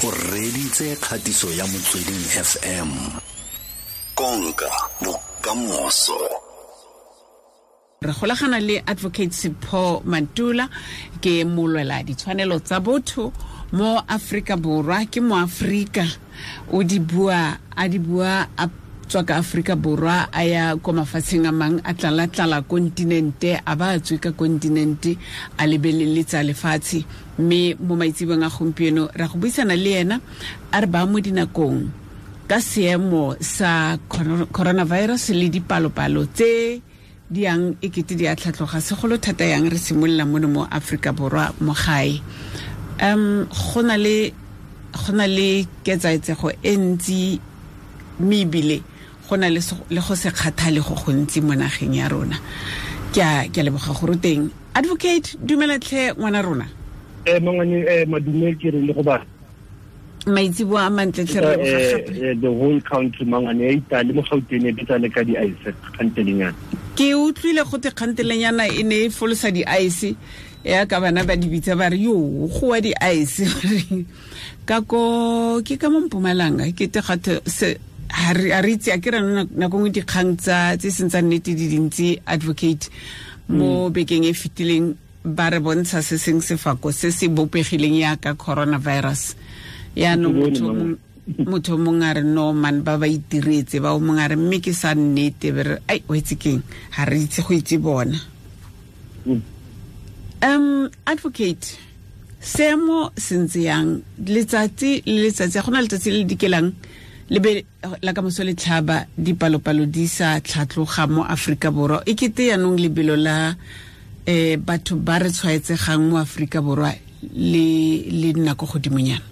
O reditse kgatiso ya Motsweding FM. Konka bokamoso. Re golagana le Advocate Sipho Mantula, ke molwela ditshwanelo tsa botho mo Afrika Borwa, ke mo Afrika o di bua a di bua a tswa ka Afrika Borwa a ya ko mafatsheng a mang, a tlala-tlala kontinente, a ba a tswe ka kontinente a lebeleletsa lefatshe. Mme mo maitsebong a gompieno ra go buisana le ena a re ba mo dinakong ka seemo sa coronavirus le dipalopalo tse di yang e kete di a tlhatloga, segolo thata yang re simolola mono mo Afrika Borwa mo gae. Go na le ketsaetsego e ntsi, mme ebile go na le go se kgathale go gontsi mo nageng ya rona. Ke a leboga gore teng. Advocate, dumela tlhe ngwana rona. Mangwane, madume ke re le go ba maitsibo a mantle tlhe re leboga gape. The whole country mangwane e itale mo Gauteng e betsa le ka di-ice kgantelenyana. Ke utlwile go te kgantelenyana e ne e folosa di-ice, ya ka bana ba di bitsa ba re yo go wa di-ice. Ka ko ke ka mo Mpumalanga ke te gathe se ha re itse a ke re nako nngwe dikgang tsa tse seng tsa nnete di dintsi advocate mo bekeng e fetileng ba re bontsha se seng sefako se se bopegileng yaka coronavirus. Yaanong motho mongwe a re no man ba itiretse, ba o mongwe a re mme ke sa nnete, be re ai o itse keng, ha re itse go itse bona. Advocate, seemo se ntse yang letsatsi le letsatsi? Go na letsatsi le dikelang le be la ka moso le tlhaba dipalopalo di sa tlhatloga mo Afrika Borwa. E kete yaanong lebelo la batho ba re tshwaetsegang mo Afrika Borwa le nna ko godimonyana.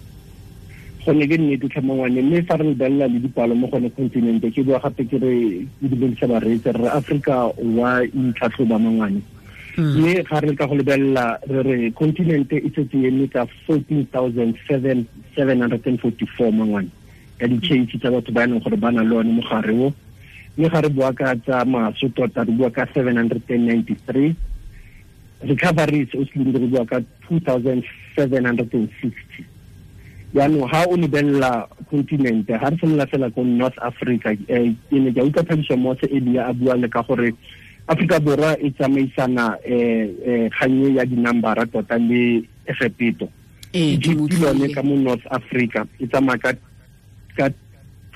Gone ke nnete tlhamangwane, mme fa re lebelela le dipalo mo gone continente, ke bua gape ke re ke dumedisa bareetsi, re Afrika wa itlhatlhoba mangwane. Mme ga re ka go lebelela re re continente e setse e eme ka 14,744 mangwane ka di-case tsa batho ba e leng gore ba na le one mogare o. Mme ga re bua ka tsa maso tota re bua ka 793, recoveries o se re bua ka 2,760. Jaanong ga o lebelela continente, ga re simolola fela ko North Africa, ke ne ke utlwa Thabiso Mose elia a bua le ka gore Afrika Borwa e tsamaisana kgannye ya dinambara tota le Egepeto. Egypt lone ka mo North Africa e tsamaya ka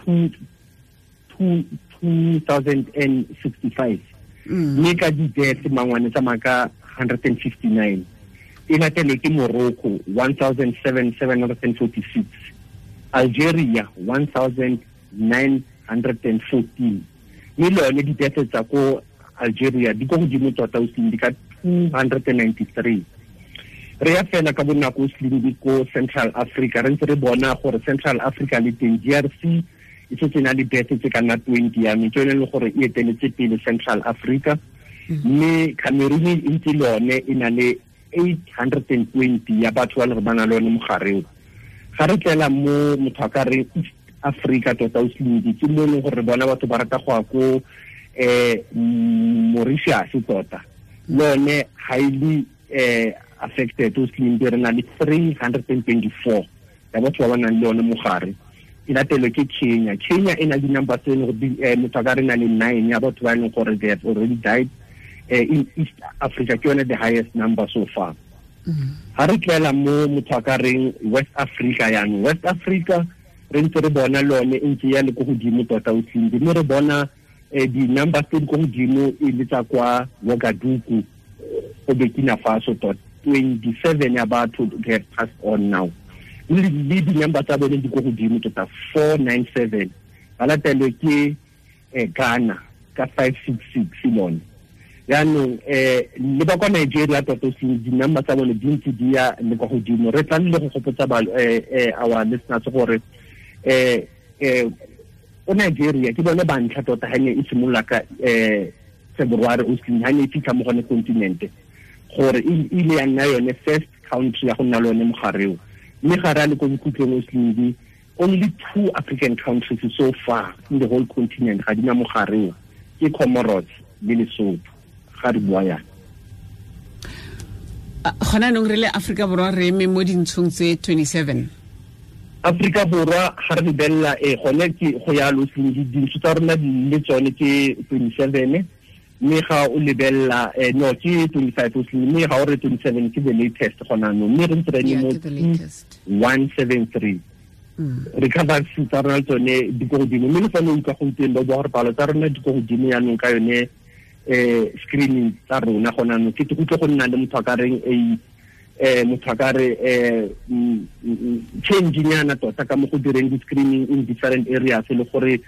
2,065, mme ka di-death mangwane tsamaya ka 159. E latelwe ke Morocco 1,746, Algeria 1,914, mme le yone di-death tsa ko Algeria di ko godimo tota o di ka 293. Re ya fela ka bonako o di ko Central Africa, re ntse re bona gore Central Africa le teng DRC e setse na le death tse ka nna 20 ya mme ke yone e leng gore e eteletse pele Central Africa. Mme Cameroon e ntse le yone e na le 820 ya batho ba le ba na le one mogare o. Ga re tlela mo motho a ka re East Africa tota o slindi, ke mo e leng gore re bona batho ba rata go ya ko Mauritius tota, le yone highly affected o slindi, re na le 324 ya batho ba ba nang le one mogare. E latelwe ke Kenya. Kenya e na le di-number tse e leng gore motho a ka re na le 9 ya batho ba e leng gore they have already died. In East Africa ke yone the highest number so far. Ha re tlela mo motho a ka reng West Africa, yanong West Africa re ntse re bona lone e ntse ya le ko godimo tota o tlile, mme re bona di-numbers tse di ko godimo e le tsa kwa Ouagadougou go Burkina Faso tota 27 ya batho they have passed on now. Le di-number tsa bone di ko godimo tota 497, ba latelwe ke Ghana ka 566 lone. Jaanong le ba kwa Nigeria tota di-number tsa bone di ntse di ya le kwa godimo. Re tla le go gopotsa our listeners gore o Nigeria ke bone ba ntlha tota ha ne e simolola ka February o ha ne e fitlha mo gone continente, gore e ile ya nna yone first country ya go nna le one mogare o. Mme ga re a le ko bokhutlong o slindi, only 2 African countries so far in the whole continent ga di na mogare o, ke Comoros le Lesotho. Ga re bua yana gona nong re le Afrika Borwa re eme mo dintshong tse 27. Afrika Borwa ga re lebelela gone ke go ya lo dintsho tsa rona di le tsone ke 27, mme ga o lebelela no ke 25, mme ga o re 27 ke the latest gona no, mme re ntse re mo 173. Recovery tsa rona tsone di ko godimo, mme le fa o utlwa gompieno ba bua gore palo tsa rona di ko godimo yaanong ka yone screening tsa rona gona no, ke utlwe go nna le motho a ka reng motho a ka re change nyana tota ka mo go direng di-screening in different areas, le gore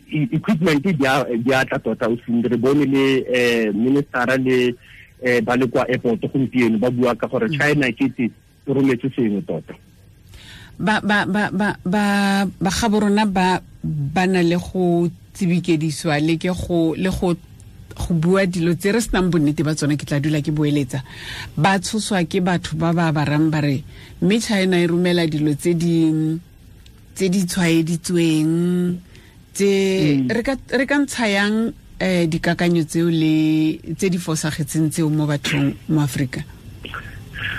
equipment di a tla tota. O re bone le ministera le ba le kwa airport gompieno ba bua ka gore China ke te e rometse sengwe tota. Ba ba ba ba ba ba ga borona ba ba na le go tsibikediswa le ke go le go go bua dilo tse re senang bonnete ba tsone, ke tla dula ke boeletsa. Ba tshoswa ke batho ba ba barang ba re mme China e romela dilo tse di tshwaeditsweng tse re ka ntshayang dikakanyo tseo le tse di fosagetseng tseo mo bathong mo Afrika.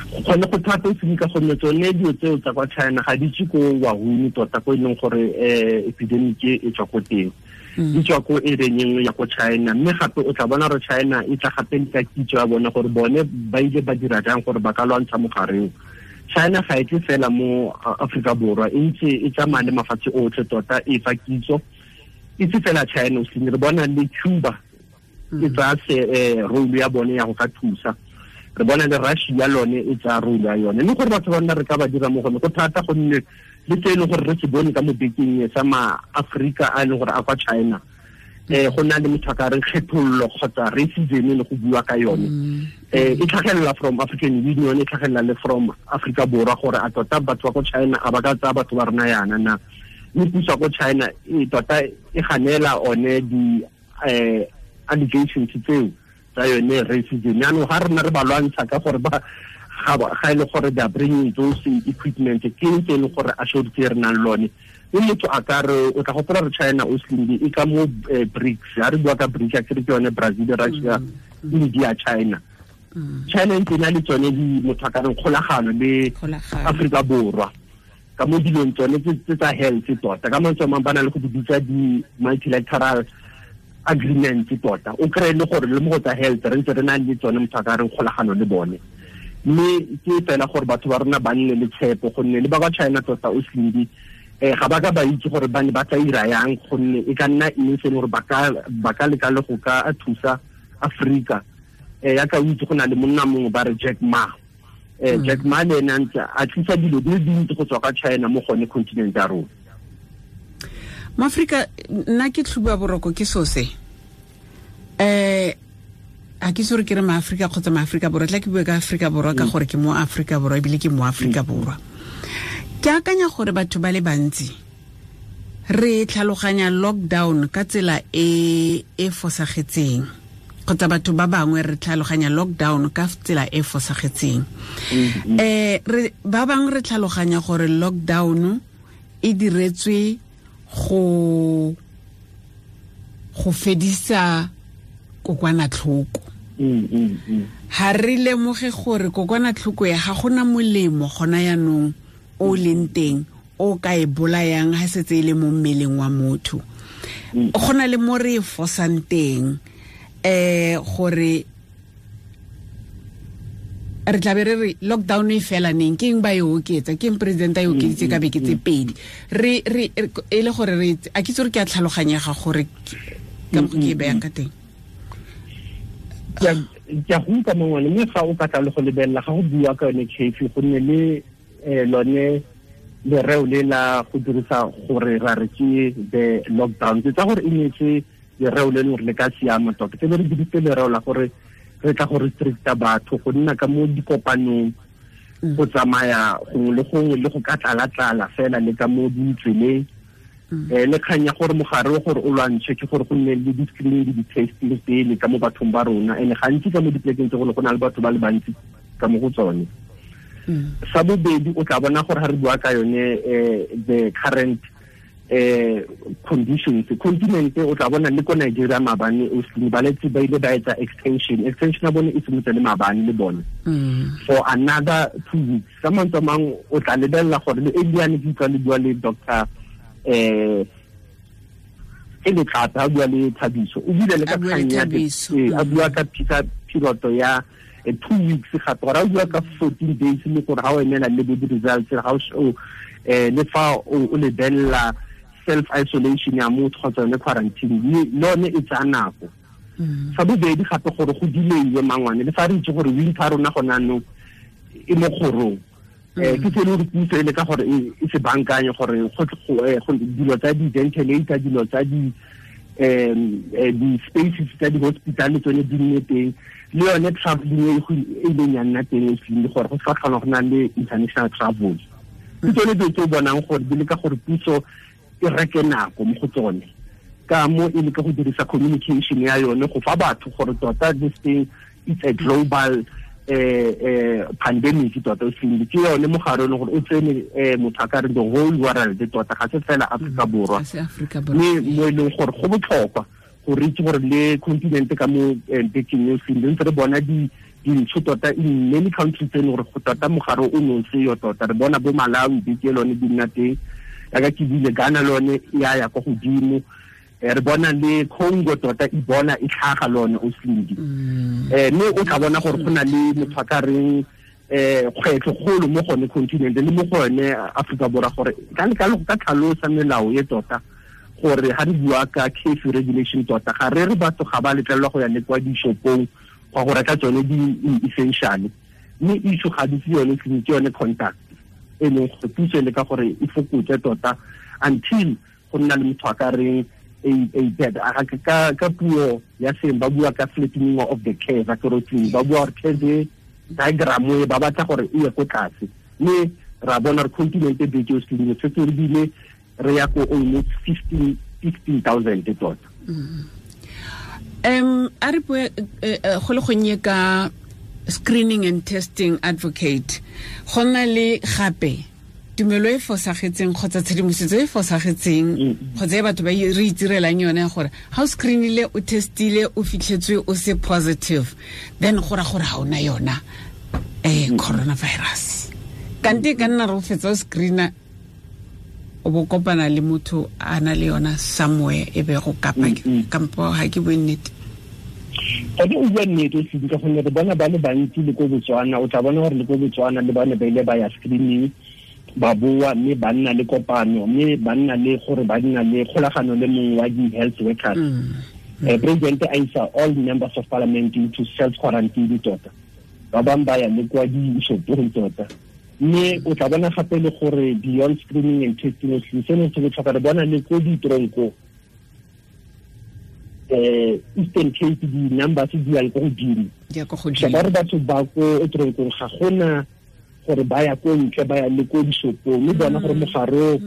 Gone go thata o ka gonne tsone dilo tseo tsa kwa China ga di tswe ko Wuhan tota, ko e leng gore epidemic e tswa ko teng, di tswa ko area nngwe ya ko China. Mme gape o tla bona gore China e tla gape ka kitso ya bone gore bone ba ile ba dira jang gore ba ka lwantsha mogareng. China ga e tle fela mo Afrika Borwa, e ntse e tsamaya le mafatshe otlhe tota e fa kitso. E se fela China, o re bona le Cuba e tsaya role ya bone ya go ka thusa, re bona le Russia lone e tsaya role ya yone. Mme gore batho ba nna re ka ba dira mo gone go thata, gonne le tse e leng gore re se bone ka mo bekeng sa ma-Afrika a e leng gore a kwa China, go na le motho a ka reng kgethollo kgotsa racism le go bua ka yone. E tlhagelela from African Union, e tlhagelela le from Afrika Borwa gore a tota batho ba ko China a ba ka tsaya batho ba rona yana na. Mme puso ko China e tota e ganela one di allegations tseo tsa yone racism. Jaanong ga rona re ba lwantsha ka gore ba ga e le gore they are bringing those equipment, ke ntse e leng gore a shortse re nang lone. Mme motho a ka re o tla gopola re China o slimbi e ka mo BRICS, ha re bua ka BRICS ke re ke yone Brazil, Russia, India, China. China e ntse na le tsone di motho a ka reng kgolagano le Afrika Borwa ka mo dilong tsone tse tsa health tota. Ka mantswe a mangwe ba na le go di bitsa di-multilateral agreements tota. O kry-e le gore le mo go tsa health re ntse re na le tsone motho a ka reng kgolagano le bone. Mme ke fela gore batho ba rona ba nne le tshepo, gonne le ba kwa China tota o slimbi ga ba ka ba itse gore ba ne ba tla ira yang, gonne e ka nna eng se e leng gore ba ka leka le go ka thusa Afrika. Yaka o itse go na le monna mongwe ba re Jack Ma. Jack Ma le ene a ntse a tlisa dilo di le dintsi go tswa ka China mo gone continent ya rona. Mo-Afrika nna ke tlhuba boroko ke so se. A ke sore ke re ma-Afrika kgotsa ma-Afrika Borwa, tla ke bue ka Afrika Borwa ka gore ke mo Afrika Borwa ebile ke mo Afrika Borwa. Ke akanya gore batho ba le bantsi re tlhaloganya lockdown ka tsela e e fosagetseng, kgotsa batho ba bangwe re tlhaloganya lockdown ka tsela e fosagetseng. Re ba bangwe re tlhaloganya gore lockdown e diretswe go fedisa kokwanatlhoko. Ha re lemoge gore kokwanatlhoko ya ga gona molemo gona yanong o leng teng o ka e bolayang ha setse e le mo mmeleng wa motho. Go na le mo re e fosang teng gore re tla be re re lockdown e fela neng, ke eng ba e oketsa, ke eng president a e okeditse ka beke tse pedi. Re e le gore re a ke itse gore ke a tlhaloganyega gore ka mokgwa ke e bayang ka teng. Ke a go utlwa mongwe, mme ga o ka tla le go lebelela ga go bua ka yone curfew, gonne le lone lereo le la go dirisa gore ra re ke the lockdown, ke tsa gore e netse lereo le leng gore le ka siama tota. Ke be re dirisitse lereo la gore re tla go restricta batho go nna ka mo dikopanong, go tsamaya gongwe le gongwe le go ka tlala-tlala fela le ka mo ditseleng. Le kgang ya gore mogare o gore o lwantshe ke gore go nne le di-screening le di-testing pele ka mo bathong ba rona, and gantsi ka mo dipolekeng tse go na le batho ba le bantsi ka mo go tsone. Sa bobedi o tla bona gore ga re bua ka yone the current Conditions continent o tla bona le ko Nigeria maabane o se ba letse ba ile ba etsa extension ya bone e simotse le maabane le bone for another 2 weeks. Ka mantswe a mangwe o tla lebelela gore le Eliane ke utlwa le bua le doctor e le tlata a bua le Thabiso, o bile le ka kgang ya a bua ka piloto ya 2 weeks gape, gore a bua ka 14 days le gore ga o emela le bo di-results ga o le fa o lebelela self isolation ya motho kgotsa yone quarantine le yone e tsaya nako. Sa bobedi gape gore go delaywe mangwane le fa re itse gore winter rona gone anong e mo kgorong, ke se le gore puso e leka gore e se bankanye gore go dilo tsa di-ventilator, dilo tsa di-spaces tsa di-hospital le tsone di nne teng, le yone traveling e ileng ya nna teng e gore go se ka tlhola go na le international travel. Ke tsone dilo tse o bonang gore di leka gore puso e reke nako mo go tsone, ka mo e leka go dirisa communication ya yone go fa batho gore tota this thing it's a global pandemic tota o seng ke yone mogare o gore o tsene motho a ka re the whole world tota, ga se fela Afrika Borwa, mme mo e leng gore go botlhokwa gore itse gore le continent ka mo bekeng e seng ntse re bona dintsho tota in many countries tse e leng gore go tota mogare o ne o seyo tota. Re bona bo Malawi beke lone di nna teng, yaka ke bile Ghana lone ya ya kwa godimo, re bona le Congo tota Ebola e tlhaga lone o slindi. Mme o tla bona gore go na le motho a ka reng kgwetlho kgolo mo gone continent le mo gone Afrika Borwa, gore ka ka tlhalosa melao e tota gore ga re bua ka curfew regulation tota ga re re batho ga ba letlelelwa go ya le kwa dishopong go go reka tsone di-essential, mme issue ga di se yone ke yone contact e leng gore puso e leka gore e fokotse tota until go nna le motho a ka reng a bed ka puo ya seng ba bua ka flattening of the curve, ba bua gore curve diagram e ba batla gore e ye ko tlase, mme ra bona re continent e beke o selemo setse re bile re ya ko almost 15,000 tota. A re bue go le gonnye ka screening and testing advocate, go nna le gape tumelo e fosagetseng kgotsa tshedimosetso e fosagetseng kgotsa e batho ba re itirelang yone ya gore ga o screenile o testile o fitlhetswe o se positive, then go ra gore ga o na yona coronavirus. Kante ka nna re o fetsa o screena o bo kopana le motho a na le yona somewhere e be go kapa kampo ga ke bue nnete. Gone o bua nnete o ka gonne re bona ba le bantsi le ko Botswana, o tla bona gore le ko Botswana le bane ba ile ba ya screening ba boa mme ba nna le kopano mme ba nna le gore ba nna le kgolagano le mongwe wa di-health workers. President a isa all members of parliament into self quarantine tota, ba bangwe ba ya le kwa dishopong tota. Mme o tla bona gape le gore beyond screening and testing seno se botlhokwa, re bona le ko ditronko Eastern Cape di-numbers di yang ko godimo, ba re batho ba ko tronkong ga gona gore ba ya ko ntle ba ya le ko dishopong, mme bona gore mogare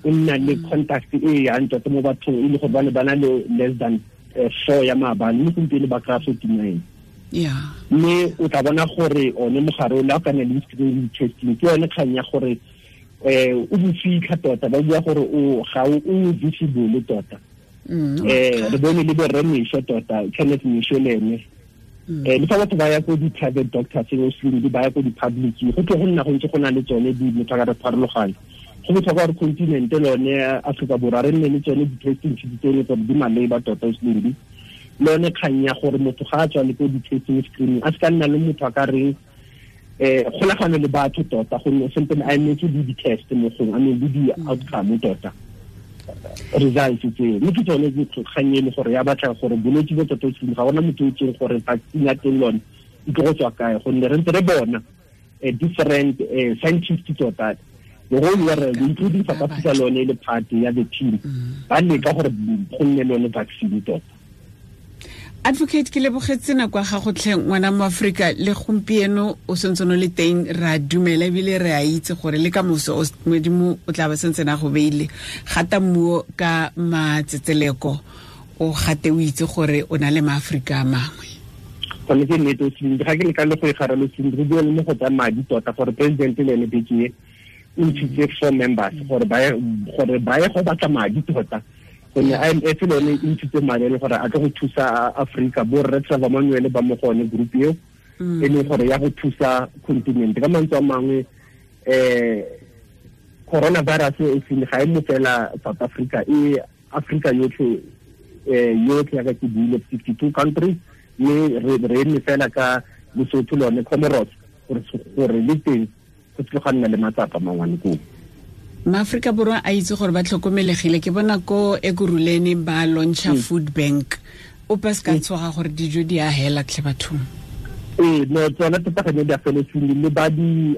o nna le contact e yang tota mo bathong e le gore ba ne ba na le less than 4 ya maabane, mme gompieno ba kry-a 49. Mme o tla bona gore one mogare o le a ka nna le screening testing ke yone kgang ya gore o bofitlha tota, ba bua gore o ga o visible tota. Re bone le borre Mesho tota, Kenneth Mesho le ene le fa batho ba ya ko di-private doctors o ba ya ko di-public, go tle go nna go ntse go na le tsone di motho a ka re pharologano. Go botlhokwa gore continent lone Afrika Borwa re nne le tsone di-testing kits tseno gore di maleba tota o le yone kgang ya gore motho ga a tswa le ko di-testing screening a se ka nna le motho a ka reng kgolagano le batho tota, gonne sentse a emetse le di-test mo gongwe, I mean le di-outcome tota results tseo. Mme ke tsone kgang e le gore ya batla gore bolwetse bo tota o ga gona motho o itseng gore vaccine ya teng lone e tlo go tswa kae, gonne re ntse re bona different scientists tota the whole world including South Africa lone le part ya the team ba leka gore go nne lone vaccine tota. Advocate, ke lebogetse nako ya gago tlhe ngwana mo Afrika, le gompieno o sentse o le teng, re a dumela ebile re a itse gore le ka moso Modimo o tla ba sentse na go beile gata mmuo ka matsetseleko, o gate o itse gore o na le maAforika a mangwe. Gone ke nnete o ga ke leka le go e garela o re bua le mo go tsa madi tota gore president le ene beke E ntshitse 4 members gore ba ye go batla madi tota, gonne IMF le yone e ntshitse madi e le gore a tlo go thusa Africa. Bo rre Trevor Manuel ba mo gone group eo, e leng gore ya go thusa continent. Ka mantswe a mangwe, coronavirus e seng ga e mo fela South Africa, e Africa yotlhe, yotlhe ya ka ke buile 52 countries, mme re eme fela ka Lesotho le yone Comoros gore le teng go tlile ga nna le matsapa mangwane koo. Maaforika Borwa a itse gore ba tlhokomelegile. Ke bona ko Ekurhuleni ba launcha food bank, ope se ka tshoga gore dijo di a hela tlhe bathong. Ee, no, tsona tota ga ne di a feletseng le ba di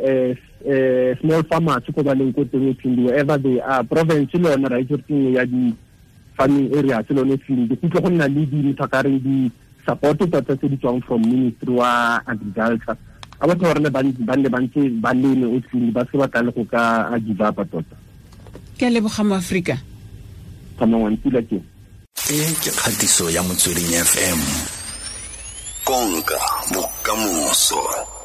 small farmers ko ba leng ko teng, wherever they are. Province le yone ra itse gore ke nngwe ya di farming areas le yone field. Go tle go nna le di motho a ka reng di support tota tse di tswang from Ministry wa Agriculture. A batho ba rona ba nne ba ntse ba leme o tlile, ba se ba tla le go ka a give up tota. Ke a leboga mo Afrika. Tsamaya pula ke. E ke kgatiso ya Motsweding FM. Konka bokamoso.